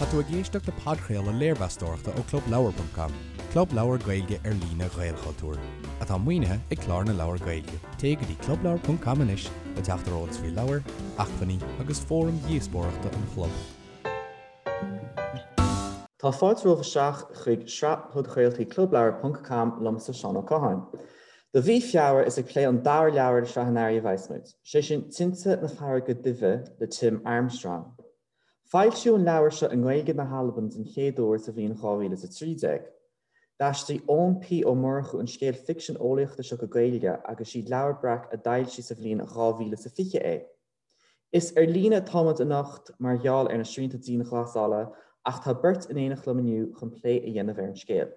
Tá tú ag éisteacht le podchraoladh léirmheastóireachta ó ClubLeabhar.com, club leabhar Gaeilge ar líne Ghaelchultúir, atá maoinithe ag Clár na Leabhar Gaeilge. Téigh go dtí clubleabhar.com anois le teacht ar eolas faoi leabhair, acmhainní agus fóraim dhíospóireachta an chlub. Tá fáilte romhaibh isteach chuig sraith podchraoltaí Clubleabhar ponc com liomsa Seán Ó Catháin. Do mhí Feabhra is ag plé an dara leabhar de shraith an Earraigh a bheas muid, sé sin Tinte na Farraige Duibhe le Tim Armstrong. Foilsíodh an leabhar seo i nGaeilge na hAlban den chéad uair sa bhliain 2013. D'aistrigh Eoin P. Ó Murchú an scéal ficsean eolaíochta seo go Gaeilge agus siad Leabhar Breac a d'fhoilsigh sa bhliain 2020 é. Is ar líne atá muid anocht mar gheall ar na srianta dianghlasála ach tá beirt in éineacht liom inniu chun plé a dhéanamh ar an scéal.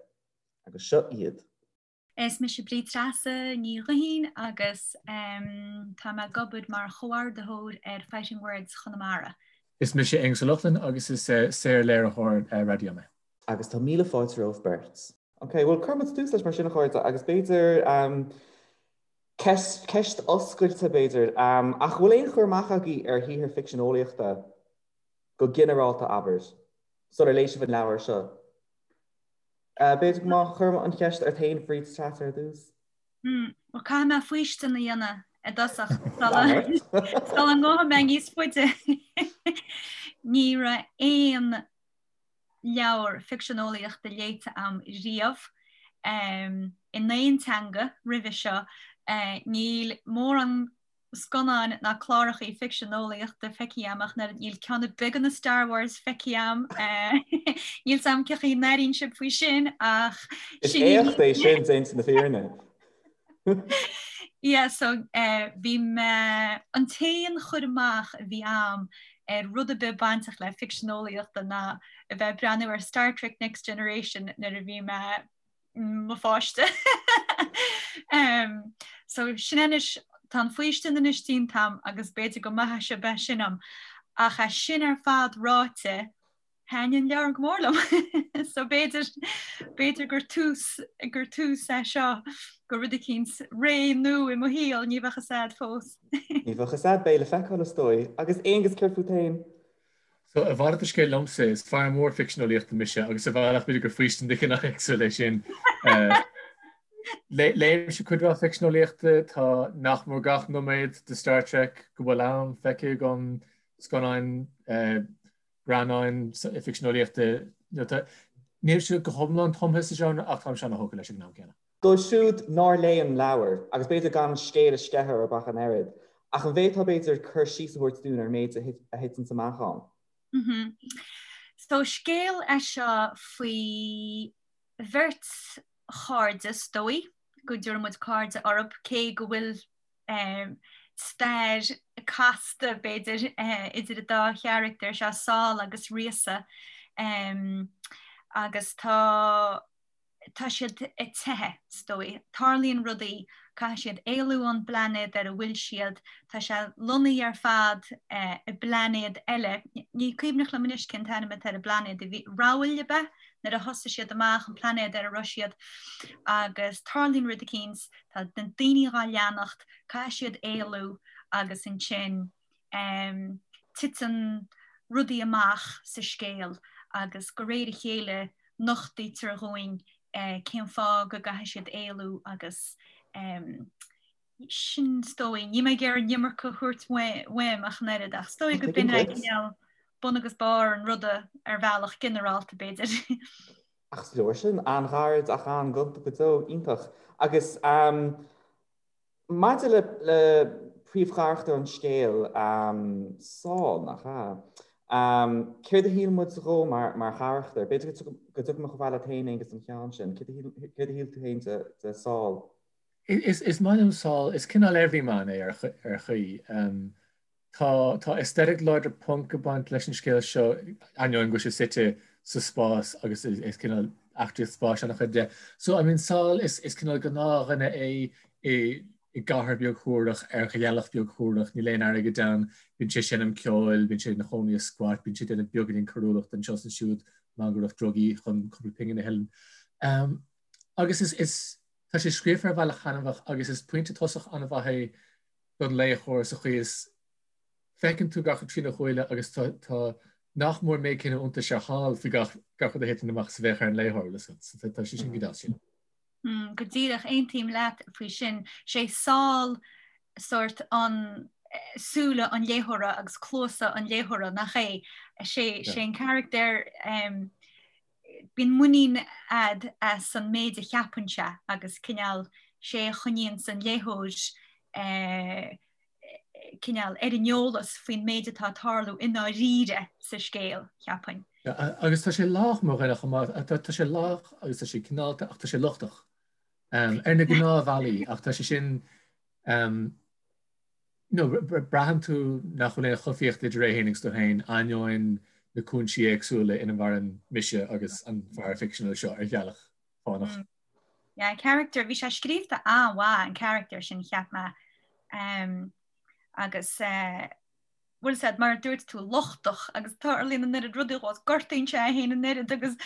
Agus seo iad. Is mise Bríd Treasa Ní Ghuithín agus tá mé ag obair mar chomhordaitheoir ar Fighting Words Chonamara. Is mise Aonghus Ó Lochlainn agus is saor-léiritheoir raidió mé. Agus tá míle fáilte romhaibh beirt. Ok, bhuel cuirfidh muid tús leis mar sin a chairde agus b'fhéidir ceist, ceist oscailte b'fhéidir, ach bhfuil aon chur amach agaibh ar shaothar ficsean eolaíochta go ginearálta abair, sular léigh sibh an leabhar seo? B'fhéidir go má chuirim an cheist ort féin Bríd Treasa ar dtús. Bhuel caithfidh mé faoistin a dhéanamh i dtosach sula ngabhfaidh mé níos faide. Ní raibh aon leabhar ficsean eolaíochta léite a'm riamh in aon teanga roimhe seo. Níl mórán scannáin ná clárachaí ficsean eolaíochta feicthe a'm ach níl ceann ar bith de na Star Wars feicthe a'm. Níl 'fhios a'm cén chaoi a n-airíonn sibh faoi sin ach Is éacht é sin déanta na fírinne. Yeah, so bhí mé, an t-aon chur amach a bhí a'm ar rud ar bith bainteach le ficsean eolaíochta ná a bheith ag breathnú ar Star Trek Next Generation nuair a bhí mé mo pháiste. So sin anois, tá an faoistin anois déanta a'm agus b'fhéidir go maithfidh sibh é sin dom. Ach é sin ar fad ráite, thaitin an leabhar go mór liom. So b'fhéidir, b'fhéidir gur tús, gur tús é seo go rud eicínt ré nua i mo shaol, ní bheadh fhios a'd fós. Ní bheadh fhios a'd, beidh le feiceáil is dóigh. Agus Aonghus, céard fút féin? So, a mhalairt de scéal liomsa, is fear mór ficsean eolaíochta mise agus ar bhealach b'fhéidir gur faoistin de chineál éagsúil é sin. Léimse cuid mhaith ficsean eolaíochta, tá nach mór gach nóiméad de Star Trek go bhfuil ann feicthe agam, scannáin, greannáin ficsean eolaíochta, nílimse go hiomlán tumtha sa genre ach táimse ana-thógtha leis ag an am céanna. Dóibh siúd nár léigh an leabhar, agus b'fhéidir gan an scéal a sceitheadh orthu ach an oiread, ach an bhféadfá b'fhéidir cur síos a thabhairt dúinn ar an méid a thiteanns amach ann? So scéal é seo faoi bheirt chairde, is dóigh go dtabharfaidh muid cairde orthu, cé go bhfuil stair casta, b'fhéidir, idir an dá charachtar seo, Sál agus Ríosa, agus tá. tá siad ag teitheadh, is dóigh. Tarlaíonn rudaí, caithfidh siad éalú ón bplainéad ar a bhfuil siad, tá sé lonnaithe ar fad i bplainéad eile, ní cuimhneach liom anois cén t-ainm atá ar an bplainéad, a bhí, Rabhail ab ea? Nuair a thosaigh siad amach, an plainéad ar a raibh siad, agus tarlaíonn rud eicínt, tá na daoine dhá leanacht, caithfidh siad éalú agus ansin titeann rudaí amach sa scéal agus de réir a chéile nochtaítear dhúinn cén fáth go gcaithfidh siad éalú agus sin is dóigh, níl mé ag iarraidh an iomarca a thabhairt uaim ach an oiread ach is dóigh go b'in é cineál bun agus barr an ruda ar bhealach ginearálta b'fhéidir. Ach is leor sin, an-ghairid ach an-ghonta go deo, iontach. Agus Maidir le le príomhcharachtar an scéil, Sál, nach ea? Céard a shíl muid dhó mar mar charachtar? B'fhéidir go dtiocfaidh mé chomh fada leat féin, Aonghus, don cheann sin. Céard a shíl tú féin de de Sál? Is is maith liom Sál. Is cineál everyman é ar ar chaoi. Tá tá aesthetic láidir punk ag baint leis an scéal seo, ainneoin go bhfuil sé suite sa spás agus is cineál eachtraíocht spáis an-chuid de. So I mean Sál is is cineál gnáthdhuine é i i gcathair beag shuarach ar ghealach beag shuarach, níl aon airgead ann, bíonn sé ag seinm ceoil, bíonn sé ina chónaí i squat, bíonn sé ag déanamh beagáinín coiriúlachta anseo is ansiúd, mangaireacht drugaí chun cúpla pingin a thuilleamh. Agus is is tá sé scríofa ar bhealach taitneamhach agus is pointe tosach an-mhaith é don léitheoir sa chaoi is feiceann tú gach rud trína shúile agus tá tá Nach mór an méid céanna iontais ar Shal faoi gach gach rud a thiteann amach is a bheadh ar an léitheoir, bhfuil a fhios agat. So tá sé sin go deas sin. Go díreach, aontaím leat faoi sin. Sé Sál sórt an súile an léitheora agus cluasa an léitheora, nach é? Sé sé an carachtar bíonn muinín a'd as an méid a cheapann sé agus cineál sé a choinníonns an léitheoir cineál ar an eolas faoin méid atá ag tarlú i ndáiríre sa scéal, cheapfainn. Agus tá sé lách mar dhuine chomh maith, tá sé lách agus tá sé cineálta ach tá sé lochtach ar na gnáthbhealaí ach tá sé sin you know, braitheann tú nach bhfuil aon choimhthíocht idir é féin agus tú féin ainneoin na cúinsí éagsúla ina mhaireann mise agus an fear ficseanúil seo ar ghealach fánach. Yeah, character, bhí sé scríofa an-mhaith an character sin cheap mé. Um, agus uh, bhfuil a fhios a'd mar a dúirt tú lochtach agus tarlaíonn an oiread rudaí dhó gortaíonn sé é féin an oiread agus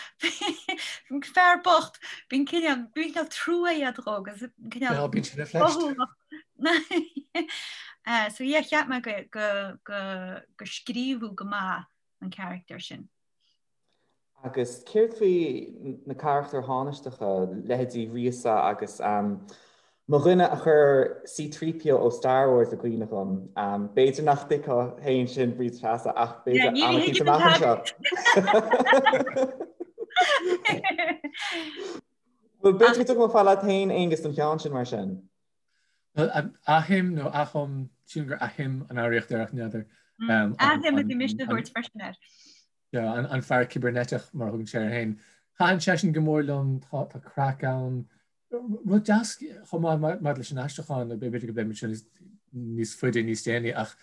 fear bocht bíonn cineál bíonn cineál trua a'd dhó agus cineál yeah, bíonn sé ina phleist. Uh, so yeah, cheap mé go, go, go, go scríobhadh go maith an character sin. Agus céard faoi na carachtair thánaisteacha, leithéidí Ríosa agus mo dhuine a chuir C-3PO ó Star Wars i gcuimhne dhom. B'fhéidir nach dtuigfeá féin sin, Bríd Treasa, ach b'fhéidir am eicínt amach anseo. Bhuel, b'fhéidir go dtiocfaidh mé fad leat féin, Aonghus, don cheann sin mar sin. Ahim nó Ahom, sílim gur Ahim an fhoghraíocht air ach n'fheadar. Ahim a bhí mise a thabhairt freisin air. An fear cibirneiteach mar a thugann sé air féin. Thaitin seisean go mór liom, tá craic ann. Rud deas chomh maith maidir leis an aistriúchán, b'fhéidir go bpléifimid sin níos faide níos déanaí ach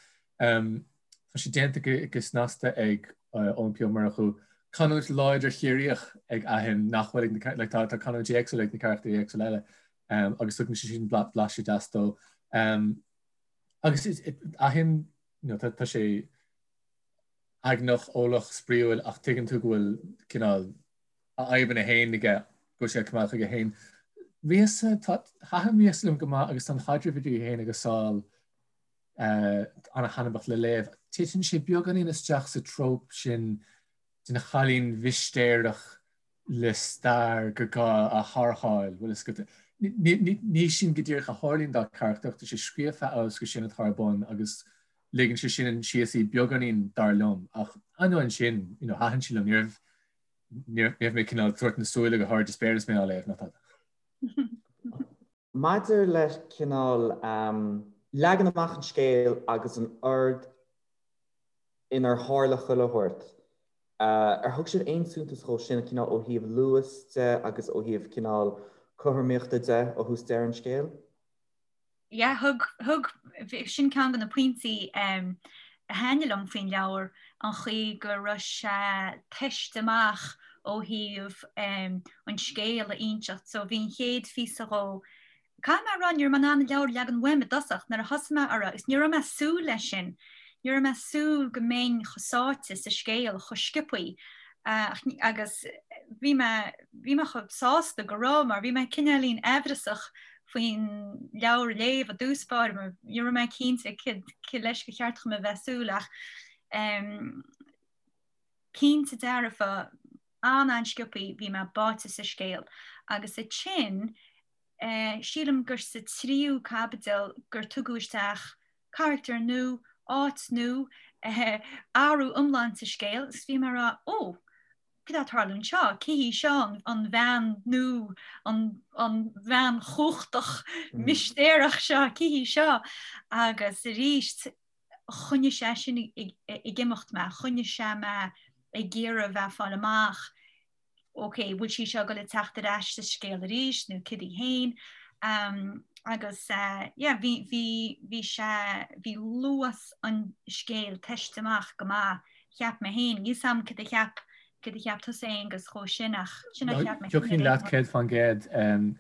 tá sé déanta go snasta ag Eoin P. Ó Murchú. Canúint láidir Chiarraíoch ag Ahim nach bhfuil ag na, tá canúintí éagsúla ag na carachtair éagsúla eile agus tugann sé sin blaiseadh deas dó. Agus Ahim, tá sé eagnach, eolach, spraíúil ach tuigeann tú go bhfuil cineál a fhadhbanna féin aige, go bhfuil sé ag coimeád chuige féin. Ríosa, tá, thaitin Ríosa liom go maith agus tá an chaidreamh idir í féin agus Sál an-thaitneamhach le léamh. Titeann sé beagáinín isteach sa trope sin den chailín mhistéireach le stair gur gá a tharrtháil, bhfuil fhios agat. Ní sin go díreach a tharlaíonn dá carachtar ach tá sé scríofa amhail is gur sin atá ar bun agus ligeann sé sin síos í beagáinín dar liom ach ainneoin sin, you know, thaitin sí liom, ní raibh ní raibh mé cineál ag tabhairt na súile go hard is spéir is mé á léamh ná tada. Maidir le cineál leagan amach an scéil agus an ord inar tharla chuile shórt, ar thug sibh aon suntas dhó sin, cineál ó thaobh luas de agus ó thaobh cineál cothromaíochta de ó thús deireadh an scéil? Yeah, thug, thug, sin ceann de na pointí a thaitnigh liom faoin leabhar, an chaoi go raibh sé tomhaiste amach ó thaobh an scéal a inseacht. So bhí an chéad phíosa dhó, caithfidh mé a rá, ní raibh mé in ann an leabhar a leagan uaim i dtosach nuair a thosaigh mé orthu agus ní raibh mé ag súil leis sin. Ní raibh mé ag súil go mbeinn chomh sáite sa scéal chomh sciobthaí agus bhí mé, bhí mé chomh sásta go raibh mar bhí mé cineáilín aimhreasach faoin leabhar a léamh i dtús báire mar ní raibh mé cinnte cé leis gur cheart dhom a bheith ag súil ach cinnte dearfa an-an-sciobthaí bhí mé báite sa scéal agus ansin sílim gur sa tríú caibidil gur tugadh isteach carachtar nua, áit nua, athrú iomlán sa scéal agus bhí mé ag rá ó! Cad tá ag tarlú anseo? Cé hí seo, an bhean nua, an bhean chumhachtach mistéireach seo, cé hí seo? Agus arís, choinnigh sé sin ag imeacht mé, choinnigh sé mé ag iarraidh a bheith ag fáil amach, ok, bhfuil sí seo ag dul a teacht ar ais sa scéal arís nó cad í féin? Agus yeah, bhí, bhí, bhí sé, bhí luas an scéil tomhaiste amach go maith cheap mé féin. Níl 's a'm cad a cheap, cad a cheap tusa Aonghus dhó sin ach sin a cheap mé féin. Thiocfainn leat 100%.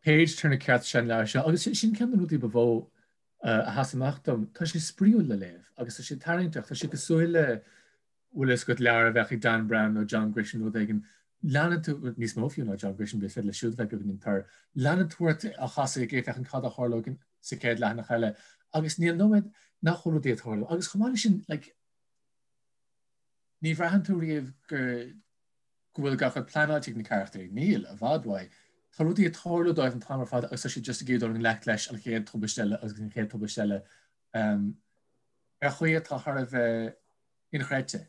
Page turner ceart is ea an leabhar seo agus sin ceann de na rudaí ba mhó a sheas amach dom. Tá sé spraíúil le léamh agus tá sé tarraingteach. Tá sé cosúil le, bhfuil fhios agat, leabhar a bheadh ag Dan Brown nó John Grisham nó rud éigin. Leanann tú, níos mó fiú ná John Grisham, is féidir leis siúd a bheith beagáinín tur. Leanann tú ort á chasadh ag féachaint cad a tharlóidh sa chéad leathanach eile agus níl nóiméad nach bhfuil rudaí ag tarlú. Agus chomh maith leis sin, like, Ní bhraitheann tú riamh go go bhfuil gach rud pleanáilte ag na carachtairí. Níl, i bhfad uaidh. Tá rudaí ag tarlú dóibh an t-am ar fad agus tá siad just ag iarraidh dul i ngleic leis an chéad tubaiste eile agus an chéad tubaiste eile ar chaoi atá thar a bheith inchreidte.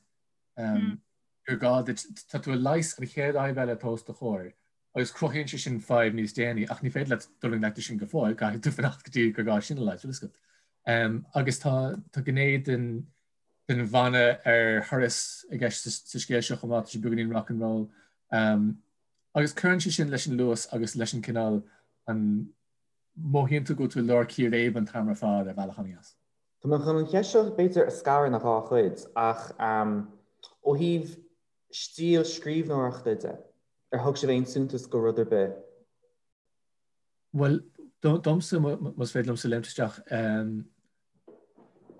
Gur gá duit, tá tú ag leigheas an chéad fhadhb eile atá os do chomhair agus cruthaíonn sé sin fadhb níos déanaí ach ní féidir leat dul i ngleic leis sin go fóill, caithfidh tú fanacht go dtí gur gá sin a leigheas, bhfuil a fhios agat. Agus tá tá gné den den bhanna ar thuras i gceist sa scéal seo chomh maith, tá sé beagáinín rock and roll. Agus cuireann sé sin leis an luas agus leis an cineál an mothaíonn tú go bhfuil tú i lár círéib an t-am ar fad ar bhealach an-dheas. Tá mé chun an cheist seo b'fhéidir a scaradh ina dhá chuid ach ó thaobh stíl scríbhneoireachta de, ar thug sibh aon suntas go rud ar bith? Bhuel, domsa, más féidir liomsa léimt isteach,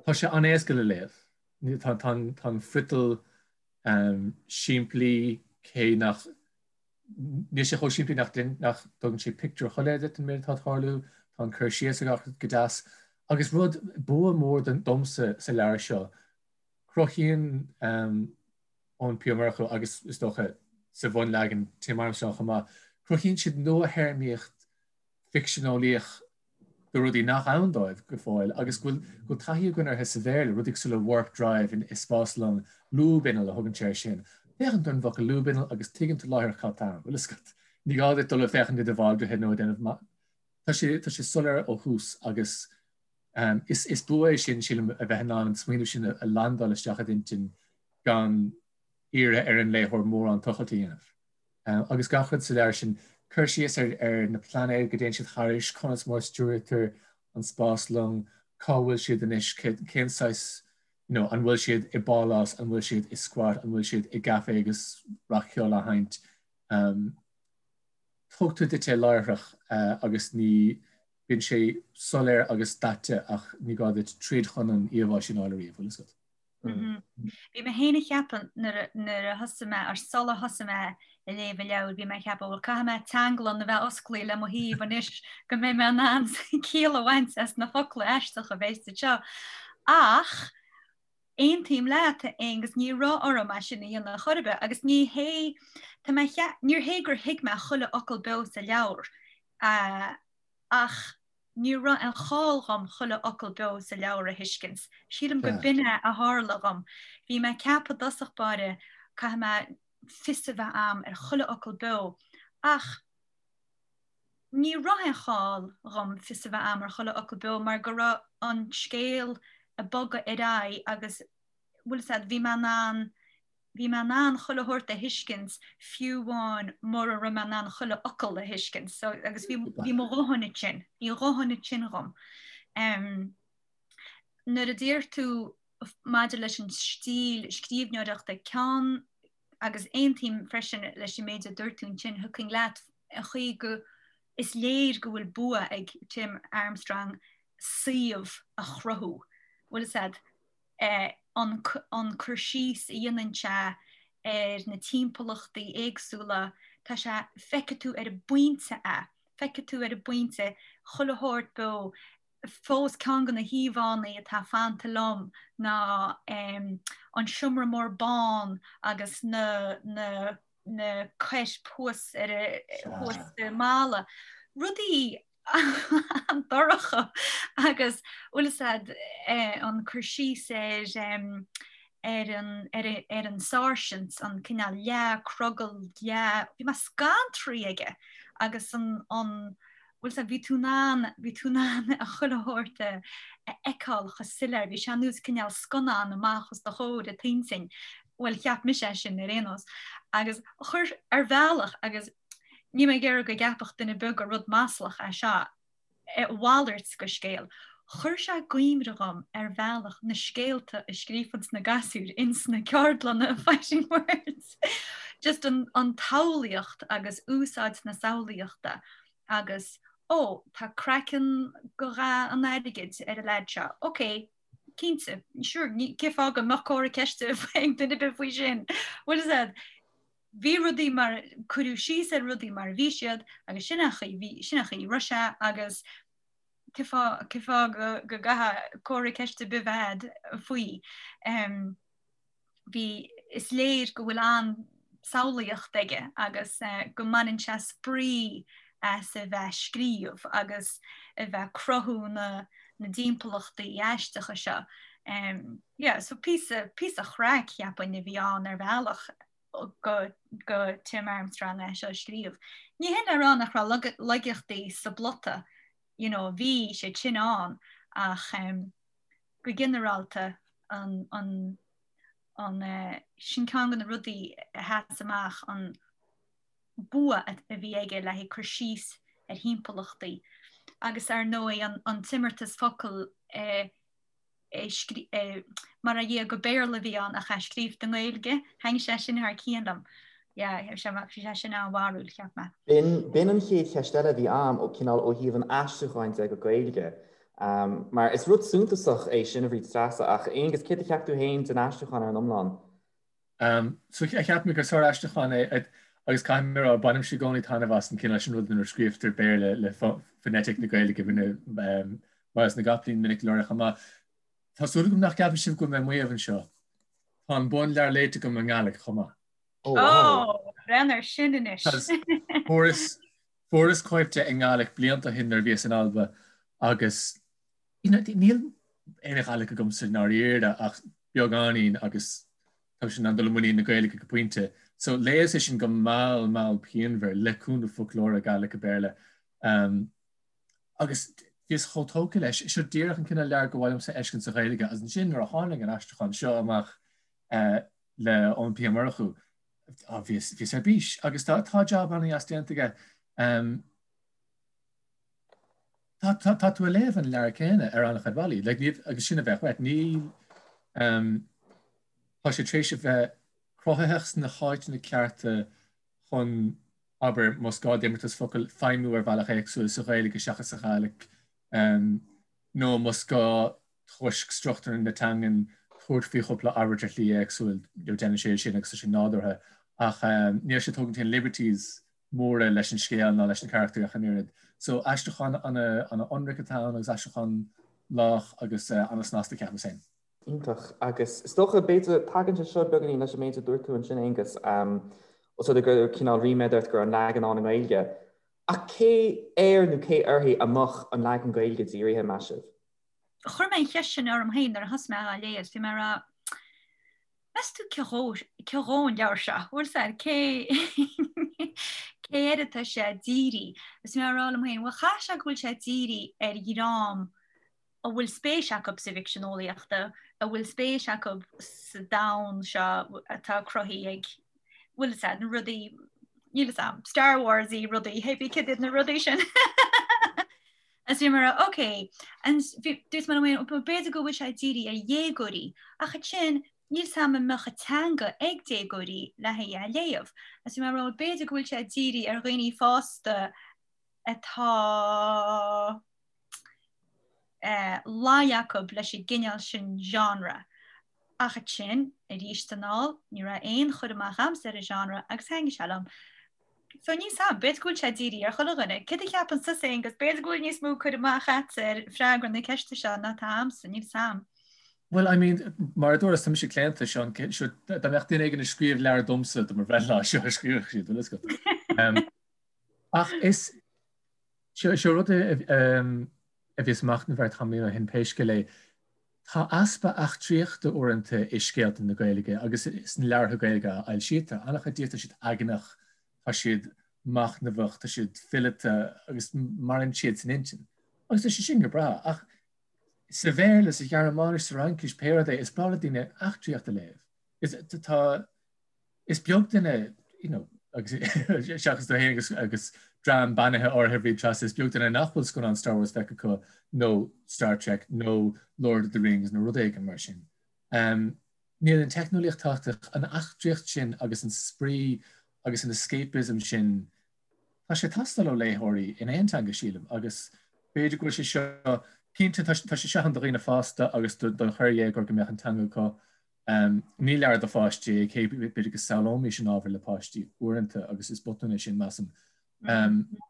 tá sé an-éasca le léamh. Tá an friotal simplí cé nach Níl sé chomh simplí nach dtugann sé pictiúr shoiléir duit den méid atá ag tarlú, tá an cur síos ag gach rud go deas. Agus rud, bua mór domsa sa leabhar seo, cruthaíonn Eoin P. Ó Murchú agus is dócha sa bhunleagan Tim Armstrong chomh maith, cruthaíonn siad nuathéarmaíocht ficseaneolaíoch do rudaí nach ann dóibh go fóill agus go bhfuil taithí againn orthu sa Bhéarla, rudaí cosúil le warp drive i spáslong, lúb-inneall a thugann sé air sin. Féachann tú ar an bhfocal lúb-inneall agus tuigeann tú láithreach cad tá ann, bhfuil a fhios agat. Ní gá duit dul ag féachaint i do bhaldraithe nó ag déanamh Tá sé tá sé soiléir ó thús agus is is bua é sin, sílim, a bheith in ann an smaoineamh sin a landáil isteach i d'intinn gan iarraidh ar an léitheoir mórán tochailt a dhéanamh. Agus gach rud sa leabhar sin, cur síos ar na pláinéid go dtéann siad thairis, conas mar a stiúraítear an spáslong, cá bhfuil siad anois, cén saghas, you know, an bhfuil siad i bpálás, an bhfuil siad i squat, an bhfuil siad i gcaife agus rac-cheol á sheinnt. Tugtar duit é láithreach agus ní bíonn sé soiléir agus daite ach ní gá duit troid chun an íomhá sin a fháil ariamh, bhfuil a fhios agat. Bhí mé féin ag ceapadh nuair a thosaigh mé, ar sular thosaigh mé ag léamh an leabhair, bhí mé ag ceapadh, bhuel, caithfidh mé teanglann a bheith osclaithe le mo thaobh anois go mbeidh mé in ann ciall a bhaint as na focla aisteacha a bheas anseo. Ach aontaím leat, a Aonghus, ní raibh orm é sin a dhéanamh chor ar bith agus ní hé, tá mé, níor hé gur thuig mé chuile fhocal beo sa leabhar ach, Ní raibh aon chall dhom chuile fhocal beo sa leabhar a thuiscint. Sílim go b'in é a tharla dhom. Bhí mé ag ceapadh i dtosach báire, caithfidh mé fios a bheith a'm ar chuile fhocal beo, ach ní raibh aon chall dhom fios a bheith a'm ar chuile fhocal beo mar go raibh an scéal ag bogadh ar aghaidh agus, bhfuil fhios a'd, bhí mé in ann Bhí mé in ann chuile shórt a thuiscint fiú amháin mura raibh mé in ann chuile fhocal a thuiscint. So, agus bhí, bhí mo dhóthain ansin, bhí a dhóthain ansin dhom. Um, nuair a deir tú maidir leis an stíl scríbhneoireachta ceann agus aontaím freisin leis an méid a dúirt tú ansin, thiocfainn leat an chaoi go is léir go bhfuil bua ag Tim Armstrong suíomh a chruthú. Bhfuil fhios a'd, an cur síos a dhéanann sé ar na timpeallachtaí éagsúla, tá sé, feicfidh tú ar an bpointe é, feicfidh tú ar an bpointe chuile shórt beo. Fós ceann de na híomhánna atá fanta liom ná an seomra mór bán agus na, na, na coirp thuas ar a, thuas sa mballa. Rudaí an-dorcha agus bhfuil fhios a'd an cur síos ar ar an ar ar an sáirsint, an cineál leath crogall leath, bhí mé scantraithe aige agus an an bhfuil fhios a'd bhí tú in ann bhí tú in ann a chuile shórt a fheiceáil chomh soiléir, bhí sé ar nós cineál scannán amach os do chomhair i t'intinn, bhuel cheap mise é sin ar aon nós agus chuir ar bhealach agus Níl mé ag iarraidh go gceapfadh duine ar bith gur rud maslach é seo, a mhalairt de scéal. Chuir sé i gcuimhne dhom ar bhealach na scéalta a scríofanns na gasúir ins na ceardlanna Fighting Words. Just an an tsamhlaíocht agus úsáid na samhlaíochta agus ó, tá craiceann go dhath an airgid ar an leaid seo, ok, cinnte, sure, cén fáth go mbeadh comhartha ceiste ag duine ar bith faoi sin? Bhfuil fhios a'd? Bhí rudaí mar, cuireadh síos ar rudaí mar a bhí siad agus sin an chaoi, bhí, sin an chaoi a raibh sé agus cén fáth, cén fáth go, go gcaithfeá comhartha ceiste ar bith a bheith a'd faoi. Bhí. Is léir go bhfuil an-samhlaíocht aige agus go mbaineann sé spraoi as a bheith ag scríobh agus a bheith ag cruthú na dtimpeallachtaí aisteacha seo. Yeah, so píosa, píosa craic, cheapfainn, a bhí ann ar bhealach go, go Tim Armstrong é seo a scríobh. Ní hin le rá nach raibh laigeachtaí sa bplota, you know, bhí siad sin ann ach go ginearálta an, an, an, sin ceann de na rudaí a sheas amach, an bua a bhí aige le haghaidh cur síos ar thimpeallachtaí agus ar ndóigh an t-imeartas focal mar a dhia gur Béarla a bhí ann ach é scríofa i nGaeilge, thaitnigh sé sin thar cionn liom. Yeah, bhí sé sin an-bharrúil, cheap mé. B'in an chéad cheist eile a bhí a'm, ó cineál ó thaobh an aistriúcháin de go Gaeilge. Mar is rud suntasach é sin a Bhríd Treasa, ach Aonghus, céard a cheap tú féin den aistriúchán ar an iomlán? So cheap mé gur sár-aistriúchán é agus caithfidh mé a rá, bainimse i gcónaí taitneamh as an cineál sin rud nuair a scríobhtar Béarla le foneitic na Gaeilge, rinne Myles na gCopaleen minic go leor chomh maith. Tá súil agam nach gceapann sibh go bhfuil mé ag maíomh anseo. Tá an bunleabhar léite agam i nGaidhlic chomh maith. Oh wow! Breathnaigh air sin anois! Fuaireas Fuaireas cóip de i nGaidhlic blianta ó shin nuair a bhíos in Alba agus you know níl aon Ghaidhlic agamsa i ndáiríre ach beagáinín agus táimse in ann dul i muinín na Gaeilge go pointe. So léas é sin go mall mall pianmhar le cúnamh foclóra Gaidhlic go Béarla um, agus bhíos chomh tógtha leis. Seo díreach an cineál leabhar gur mhaith liomsa a fheiscint sa Ghaeilge agus ansin nuair a tháinig an aistriúchán seo amach uh, le Eoin P. Ó Murchú, bhíos, bhíos ar bís agus tá, tá jab an-dheas déanta aige. Um, tá, tá, tá tú ag léamh an leabhar céanna ar an-chuid bealaí, like, ní, agus sin a bheadh uait. Ní, um, tá sé tar éis a bheith cruthaitheach sna háiteanna cearta chun, abair, más gá d'imeartas focal feidhmiú ar bhealach éagsúil sa Ghaeilge seachas sa Ghàidhlic, um, nó más gá toisc struchtúr na teangan tabhairt faoi chúpla abairt ar shlí éagsúil, déanann sé sin agus tá sé nádúrtha. Ach níl sé ag tógaint aon liberties móra leis an scéal ná leis na carachtair ach an oiread. So aistriúchán ana-ionraic atá ann agus aistriúchán lách agus ana-snasta ceapaim féin. Iontach. Agus is dócha, b'fhéidir, tagann sé seo beagáinín leis an méid a dúirt tú ansin, Aonghus, os rud é go raibh cineál ríméad ort go raibh an leagan ann i nGaeilge. Ach cé air nó cé uirthi a mbeadh an leagan Gaeilge dírithe, meas sibh? Chuir mé an cheist sin orm féin nuair a thosaigh mé á léamh agus bhí mé ag rá, meas tú cé dhó, cé dhó an leabhar seo? Bhfuil 's a'd, cé, cé air atá sé dírithe? Agus bhí mé ag rá liom féin, bhuel chaithfeadh sé go bhfuil sé dírithe ar dhream a bhfuil spéis acu sa bhficsean eolaíochta, a bhfuil spéis acu sa domhan seo atá cruthaithe ag, bhfuil 's a'd, na rudaí, níl 'fhios a'm, Star Wars-y rudaí, hé bí cad iad na rudaí sin. Agus bhí mé ag rá, ok, and dúirt mé liom féin, b'fhéidir go bhfuil sé dírithe ar dhéagóirí, ach ansin níl 's a'm an mbeadh an teanga ag déagóirí le haghaidh é a léamh. Agus bhí mé ag rá, b'fhéidir go bhfuil sé dírithe ar dhaoine fásta atá luí acu leis an gcineál sin genre. Ach ansin, arís anall, ní raibh aon chur amach a'msa ar an genre agus thaitnigh sé liom. So níl 's a'm, b'fhéidir go bhfuil sé dírithe ar chuile dhuine. Céard a cheapann tusa, Aonghus? B'fhéidir go bhfuil níos mó cur amach a'dsa ar freagra na ceiste seo ná atá a'msa, níl 's a'm. Well, I mean, mar a dúras, tá mise claonta, seo, seo, dá mbeadh duine éigin ag scríobh leabhar domsa do mo bhreithlá, seo a scríobhadh siad, bhfuil fhios agat. Ach is, Seo seo rud a bhíos ag machnamh air tamaillín ó shin pé scéal é. Tá easpa eachtraíochta uaireanta i scéalta na Gaeilge agus sna leabhartha Gaeilge a fhoilsítear. An-chuid díobh tá siad eagnach, tá siad machnamhach, tá siad fileata agus maireann siad san intinn. Agus tá sé sin go breá ach sa Bhéarla, sa Ghearmáinis, sa Fhraincis, pé rud é, is breá le daoine eachtraíocht a léamh. Is tá Is beag duine, you know, agus seachas tú féin agus, agus dream beannaithe áirithe a Bhríd Treasa, is beag duine nach bhfuil scannán Star Wars feicthe acu nó Star Trek nó Lord of the Rings nó rud éigin mar sin. Um, níl an teicneolaíocht tábhachtach, an eachtraíocht sin agus an spraoi agus an escapism sin, tá sé ag teastáil ó léitheoirí in aon teanga sílim agus b'fhéidir go bhfuil sé seo, cinnte tá sé seo ann do dhaoine fásta agus don chorrdhéagóir go mbeadh an teanga acu Ní leabhar do pháistí é, cé b'fhéidir go samhlóimis an ábhar le páistí uaireanta agus is botún é sin, measaim.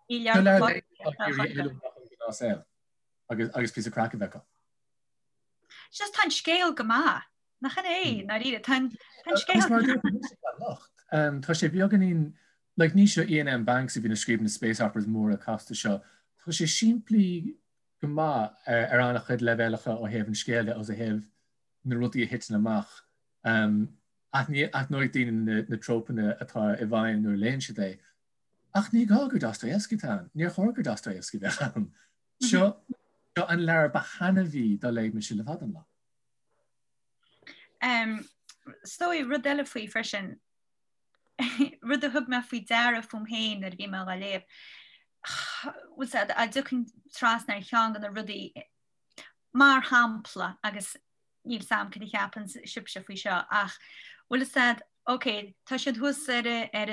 Ní leabhar do páistí agus agus píosa craic a bheith acu. Just tá an scéal go maith. Nach in é, ndáiríre, tá an scéal. Tá sé beagáinín, like ní seo Iain M. Banks a bhíonn ag scríobh na space operas móra casta seo, tá sé simplí go maith ar an-chuid leibhéalacha ó thaobh an scéil de agus ó thaobh na rudaí a thiteann amach. Aithneoidh daoine na trópanna atá i bhfeidhm nuair a léann siad é. Ach ní gá gur Dostoevsky atá ann. Níor chóir gur Dostoevsky a bheadh ann. Seo an leabhar ba thaitneamhaí dá léigh mise le fada an lá. Is dóigh rud eile faoi freisin, rud a thug mé faoi deara fúm féin nuair a bhí mé á léamh, bhfuil 's a'd, a dtiocfainn trasna ar cheann de na rudaí, mar shampla, agus níl 's a'm cad a cheapann sibhse faoi seo, ach bhfuil 's a'd, ok, tá siad thuas ar ar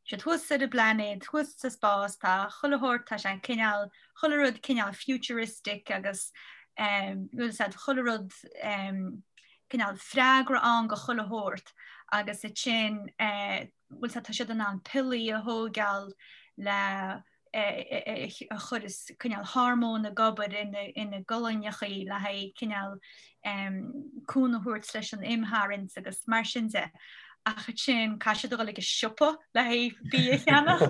siad thuas ar an bplainéad, thuas sa spás, tá chuile shórt, tá sé cineál, chuile rud cineál futuristic agus bhfuil 's a'd, chuile rud cineál freagra ann go chuile shórt agus ansin bhfuil 's a'd, tá siad in ann piollaí a thóigeáil le a chuireas cineál hormóin ag obair ina gcolainneachaí le haghaidh cineál cúnamh a thabhairt leis an imtharraingt agus mar sin de. Ach ansin caithfidh siad a dhul ag an siopa le haghaidh bia a cheannach.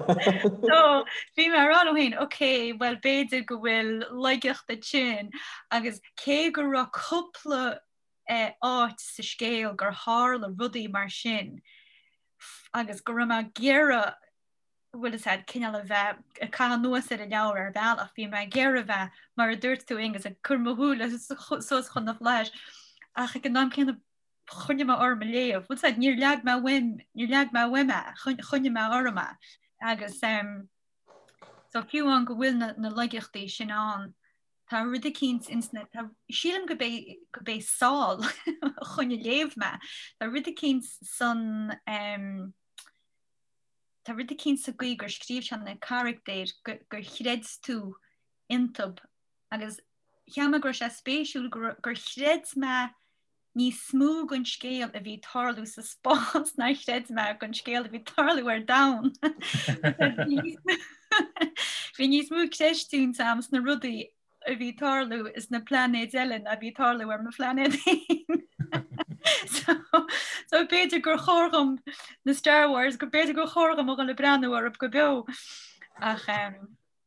So bhí mé ag rá liom féin, ok, bhuel b'fhéidir go bhfuil laigeacht ansin agus cé go raibh cúpla áit sa scéal gur tharla rudaí mar sin agus go raibh mé ag iarraidh bhfuil 'fhios a'd, cineál a bheith ag caitheamh anuas ar an leabhar ar bhealach, bhí mé ag iarraidh a bheith, mar a dúirt tú Aonghus, ag cur mo shúile suas chun na bhflaitheas, ach ag an am céanna choinnigh mé orm ag léamh, bhfuil 'fhios a'd, níor leag mé uaim, níor leag mé uaim é, choinnigh mé orm é. Agus so fiú amháin go bhfuil na, na laigeachtaí sin ann, tá rud eicínt ins na, tá, sílim go b'é, go b'é Sál a choinnigh ag léamh mé, tá rud eicínt san, em, Tá rud eicínt sa gcaoi gur scríobh sé na carachtair gur chreid tú iontub agus cheap mé go raibh sé spéisiúil gur chreid mé níos mó den scéal a bhí ag tarlú sa spás ná chreid mé den scéal a bhí ag tarlú ar domhan. Bhí níos mó creistiúint a'm sna rudaí a bhí ag tarlú sna plainéid eile ná a bhí ag tarlú ar mo phlainéad féin. So, so b'fhéidir gur chóir dhom na Star Wars, go b'fhéidir gur chóir dhom a dhul ag breathnú orthu go beo. Ach um,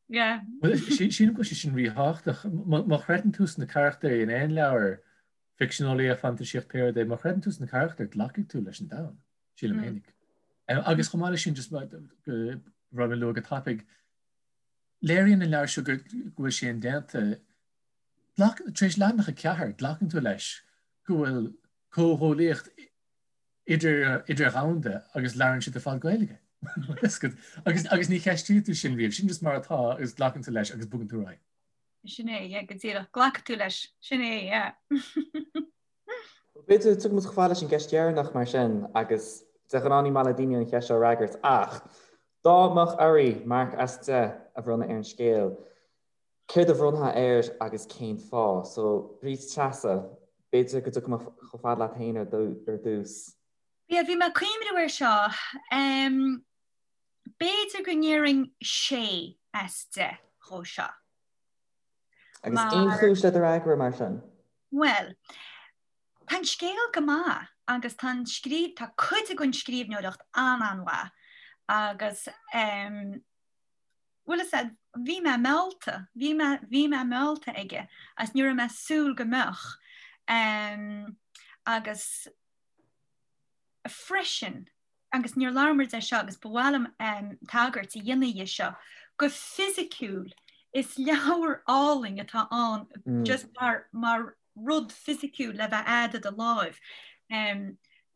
yeah. Sílim go bhfuil sé sin ríthábhachtach. Má chreideann tú sna carachtair in aon leabhar ficsean eolaíocht, fantaisíocht, pé rud é, má chreideann tú sna carachtair, glacfaidh tú leis an domhan, sílim mm. fhéinig. Agus chomh maith leis sin just go raibh mé lua go tapaidh, Léiríonn an leabhar seo go bhfuil sé indéanta. Tar éis leathanach 4, glacann tú leis go bhfuil comhghuaillíocht idir-dhomhanda agus labhrann siad ar fad Gaeilge. Agus agus ní cheistíonn tú sin riamh, sin just mar atá agus glacann tú leis agus bogann tú ar aghaidh. Sin é, yeah, go díreach. Glacfaidh tú leis. Sin é, yeah. B'fhéidir tiocfaidh muid chomh fada leis an gceist dheireanach mar sin agus de ghnáth ní maith le daoine an cheist seo a fhreagairt ach dá mbeadh oraibh marc as 10 a bhronnadh ar an scéal, céard a bhronnfá air agus cén fáth? So, Bríd Treasa, b'fhéidir go dtiocfaidh mé chomh fada leat féin ar dtús. Yeah, bhí mé ag cuimhneamh air seo. B'fhéidir go ndéarfainn 6 as 10 dhó seo. Agus aon chúis le do fhreagra mar sin? Bhuel, tá an scéal go maith agus tá an scríb, tá cuid den scríbhneoireacht an-an-mhaith agus ehm, bhfuil fhios a'd, bhí mé meallta, bhí mé, bhí mé meallta aige agus ní raibh mé ag súil go mbeadh. Ehm, agus freisin, agus níor labhair muid air seo agus ba mhaith liom tagairt a dhéanamh dhe seo, go fisiciúil, is leabhar álainn atá ann just mar, mar rud fisiciúil le bheith a'd i do láimh.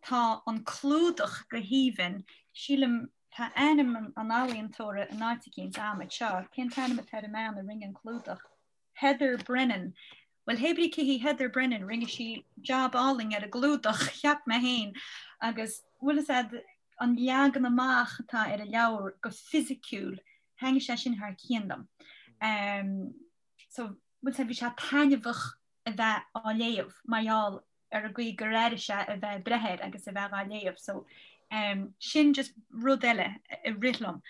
Tá an clúdach go haoibhinn, sílim, tá ainm an ealaíontóra in áit eicínt a'm anseo, cén t-ainm atá ar an mbean a rinne an clúdach? Heather Brennan. Bhuel, hé brí cé hí Heather Brennan, rinne sí jab álainn ar an gclúdach, cheap mé féin, agus bhfuil fhios a'd, an leagan amach atá ar an leabhar go fisiciúil, thaitnigh sé sin thar cionn liom. So, bhfuil fhios a'd, bhí sé taitneamhach a bheith á léamh mar gheall ar an gcaoi gur airigh sé a bheith ag breith air agus a bheith á léamh. So, sin just rud eile a rith liom.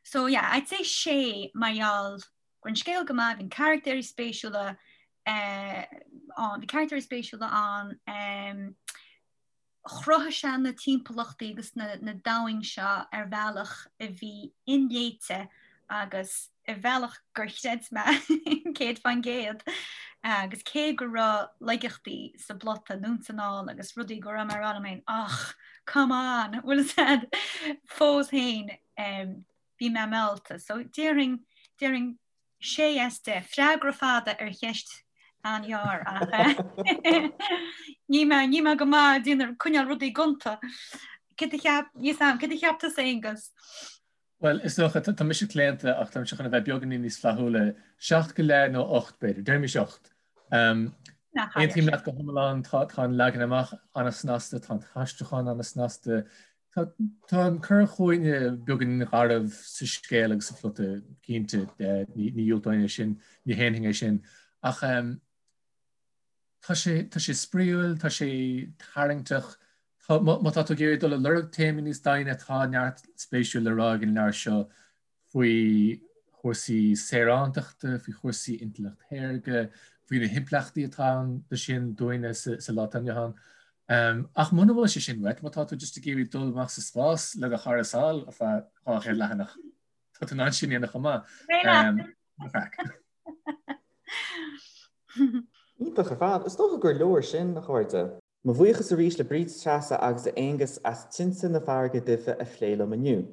So yeah, I'd say sé mar gheall go raibh an scéal go maith, bhí na carachtéirí spéisiúla, Ann, bhí carachtair spéisiúla ann, chruthaigh sé na timpeallachtaí agus na domhain seo ar bhealach a bhí inléite agus ar bhealach gur chreid mé 100% agus cé go raibh laigeachtaí sa bplota anonn is anall agus rudaí go raibh mé ag rá liom féin ach come on bhfuil a fhios agat fós féin bhí mé meallta so déarfainn déarfainn 6 as 10. Freagra fada ar cheist an-ghearr ach níl mé níl mé go maith ag déanamh coinneáil rudaí gonta. Céard a cheap níl a fhios agam céard a cheap tusa Aonghus? Bhuel, is dócha, tá mise claonta ach tá mise chun a bheith beagáinín níos flaithiúla, 7 go leith nó 8 b'fhéidir, deirimis 8. Aontaím leat go hiomlán, tá an leagan amach an-snasta, tá an t-aistriúchán an-snasta, tá an cur chugainne beagáinín garbh sa scéal agus sa phlota, cinnte, ní dhiúltóinn é sin, ní shéanfainn é sin, ach tá sé, tá sé spraíúil, tá sé tarraingteach, má tá tú ag iarraidh dul ag lorg téamaí níos doimhne, tá neart spéisiúil le rá ag an leabhar seo. faoi chúrsaí saorántachta, faoi chúrsaí intleacht shaorga, faoi na himpleachtaí atá ann do sin dúinne sa lá atá inniu ann. Ach muna bhfuil sé sin uait, má tá tú just ag iarraidh dul amach sa spás le do chara Sál ar feadh 200 leathanach, tá tú in ann sin a dhéanamh chomh maith. Craic. Iontach ar fad. Is dócha gur leor sin, a chairde. Mo bhuíochas arís le Bríd Treasa agus Aonghus as Tinte na Farraige Duibhe a phlé liom inniu.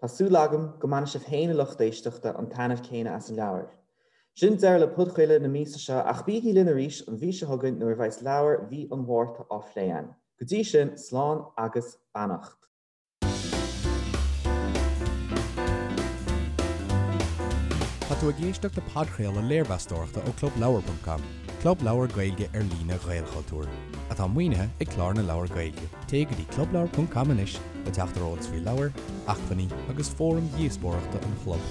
Tá súil agam go mbainfidh sibh féin a lucht éisteachta an taitneamh céanna as an leabhar. Sin deireadh le podchraoladh na míosa seo ach bígí linn arís an mhí seo chugainn nuair a bheas leabhar mhí an Mhárta á phlé againn. Go dtí sin, slán agus beannacht. Tá tú ag éisteacht le podchraoladh léirmheastóireachta ó ClubLeabhar.com, club leabhar Gaeilge ar líne Ghaelchultúir, atá maoinithe ag Clár na Leabhar Gaeilge. Téigh go dtí clubleabhar.com anois le teacht ar eolas faoi leabhair, acmhainní agus fóraim dhíospóireachta an chlub.